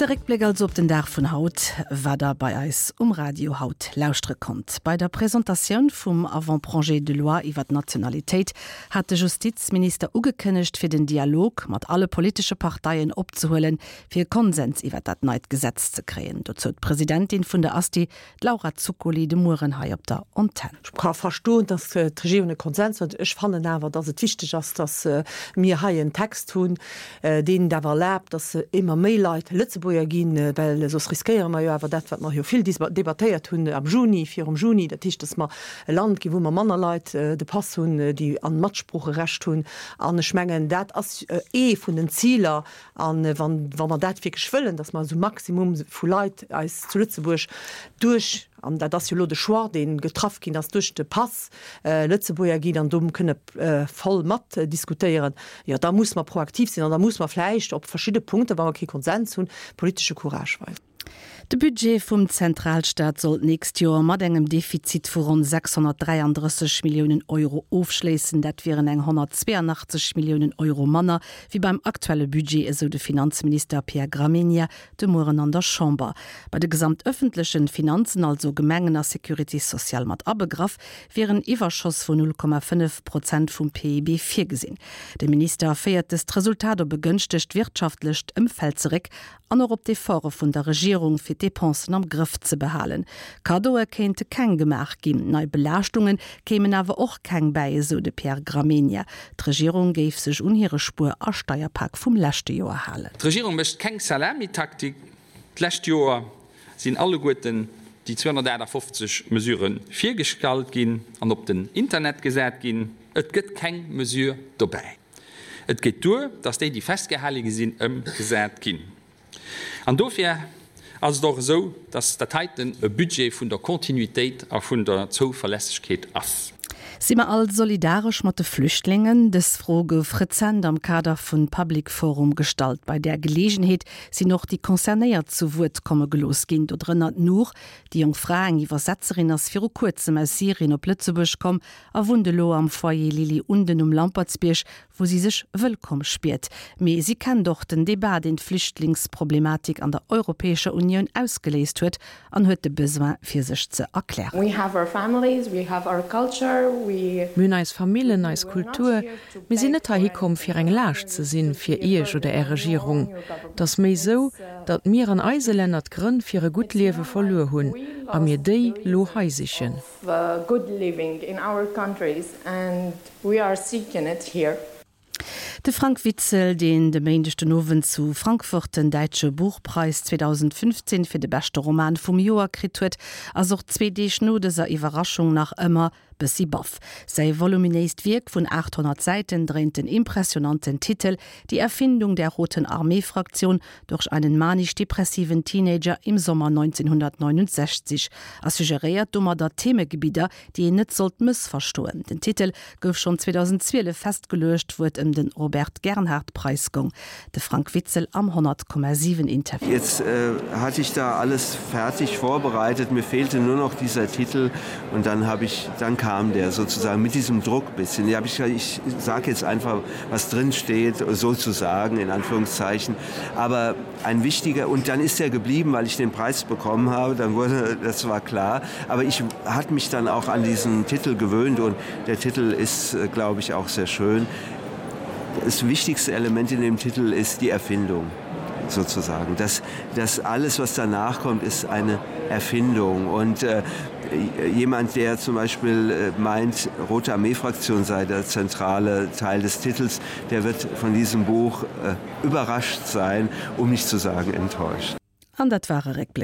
De Réckbléck also op den Dag vun haut, wat der bei eis um Radio haut lauschtere konnt. Bei der Presentatioun vum Avant-projet de loi iwwer d'Nationalitéit hat de Justizminister ugekënnegt, fir den Dialog mat alle politesche Parteien opzehuelen, fir e Konsens iwwer dat neit Gesetz ze kréien. Dozou d'Presidentin vun der Asti, d'Laura Zuccoli, de Mueren hei op der Antenn. Ech ka verstoen, datt d'Regierung e Konsens wëllt. Ech fannen awer, datt et wichteg ass, datt mir hei en Text hunn, deen et awer erlaabt, datt émmer méi Leit Lëtzebuerger ginn, well soss riskéiere mer jo awer dat, wat mer jo vill debattéiert hunn am Juni, virum Juni, dat heescht, datt mer e Land ginn, wou mer manner Leit de Pass hunn, déi an Matsproocherecht hunn. An ech mengen, dat ass ee vun den Ziler, A wann, wa mer dat wierklech wëllen, datt mer esou Maximum vu Leit eis zu Lëtzebuerg duerch, an dat ass jo elo de Choix, dee getraff ginn ass, duerch de Pass Lëtzebuerger ginn an do kënne voll matdiskutéieren, jo da muss mer proaktiv sinn an da muss mer vläicht op verschidde Punkten, wa mer kee Konsens hunn, politesche Courage weisen. De Budget vum Zentralstaat soll d'nächst Joer mat engem Defizit vu ronn 633 Milliounen Euro ofschléissen. Dat wieren eng 182 Milliounen Euro manner wéi beim aktuelle Budget, esou de Finanzminister Pierre Gramegna de Mueren an der Chamber. Bei de gesamtëffentlechen Finanzen, also Gemengen a Sécurité sociale mat abegraff, wier en Iwwerschoss vun 0,5 Prozent vum PIB virgesinn. De Minister féiert dëst Resultat op e gënschtegt wirtschaftlecht Ëmfeld zeréck An och op d'Efforte vun der Regierung, fir d'Depensen am Grëff ze behalen. Kaddoe kéinte keng gemaach ginn, nei Belaaschtunge kéimen awer och keng bäi, esou de Pierre Gramegna. D'Regierung géif sech un hire Spuer a Steierpak vum leschte Joer halen. D'Regierung mécht keng Salamitaktik. D'lescht Joer sinn alleguerten déi 258 Mesurë virgestallt ginn an op den Internet gesat ginn. Et gëtt keng Mesure dobäi. Et geet duer, datt déi, déi festgehale gi sinn, ëmgesat ginn. An dofir ass et och esou, datt dat heiten e Budget vun der Kontinuitéit a vun der Zouverlässegkeet ass. Si mer all solidaresch mat de Flüchtlingen? Dës Fro gouf rezent am Kader vun Public Forum gestallt. Bei där Geleegenheet sinn och déi Concernéiert zu Wuert komme gelooss ginn, dodrënner d'Nour. Déi jonk Fra, eng Iwwersetzerin, ass viru kuerzem aus Syrien op Lëtzebuerg komm a wunnt elo am Foyer Lily Unden um Lampertsbierg, wou si sech wëllkomm spiert. Mee si kennt och den Debat, deen d'Flüchtlingsproblematik an der Europäescher Unioun ausgeléist huet an huet de Besoin fir sech ze erklären. Mir hunn eis Famillen, eis Kultur. Mir sinn net heihi komm fir eng Laascht ze sinn fir Iech oder Är Regierung. Et ass méi sou, datt mir an eise Länner d'Grënn fir e gutt Liewe verluer hunn a mir déi lo hei sichen. Good living in our countries and we are seeking it here. De Frank Witzel, deen de Méindeg den Owend zu Frankfurt den Däitsche Buchpreis 2015 fir de beschte Roman vum Joer kritt huet, ass och zwee Deeg no dëser Iwwerraschung nach ëmmer bëssi baff. Säi voluminéist Wierk vun 800 Säiten dréint den impressionanten Titel Die Erfindung der Roten Armee-Fraktion durch einen manisch-depressiven Teenager im Sommer 1969 a suggeréiert domadder Themegebidder, déi een net sollt mëssverstoen. Den Titel gouf schonn 2012 festgeluecht, wou et ëm den Robert-Gernhardt-Preis goung. De Frank Witzel am 100,7 Interview. Jetzt hatte ich da alles fertig vorbereitet, mir fehlte nur noch dieser Titel und dann habe ich dann kam der sozusagen mit diesem Druck bisschen. Ja, ich, ich sage jetzt einfach, was drin steht, sozusagen in Anführungszeichen. Aber ein wichtiger und dann ist er geblieben, weil ich den Preis bekommen habe, dann wurde das war klar. Aber ich hat mich dann auch an diesen Titel gewöhnt und der Titel ist, äh, glaube ich, auch sehr schön. Das wichtigste Element in dem Titel ist die Erfindung sozusagen. Das, das alles, was danach kommt, ist eine Erfindung. Und äh, jemand, der zum Beispiel äh, meint, Rote Armeefraktion sei der zentrale Teil des Titels, der wird von diesem Buch äh, überrascht sein, um nicht zu sagen enttäuscht. An dat war e Réckbléck.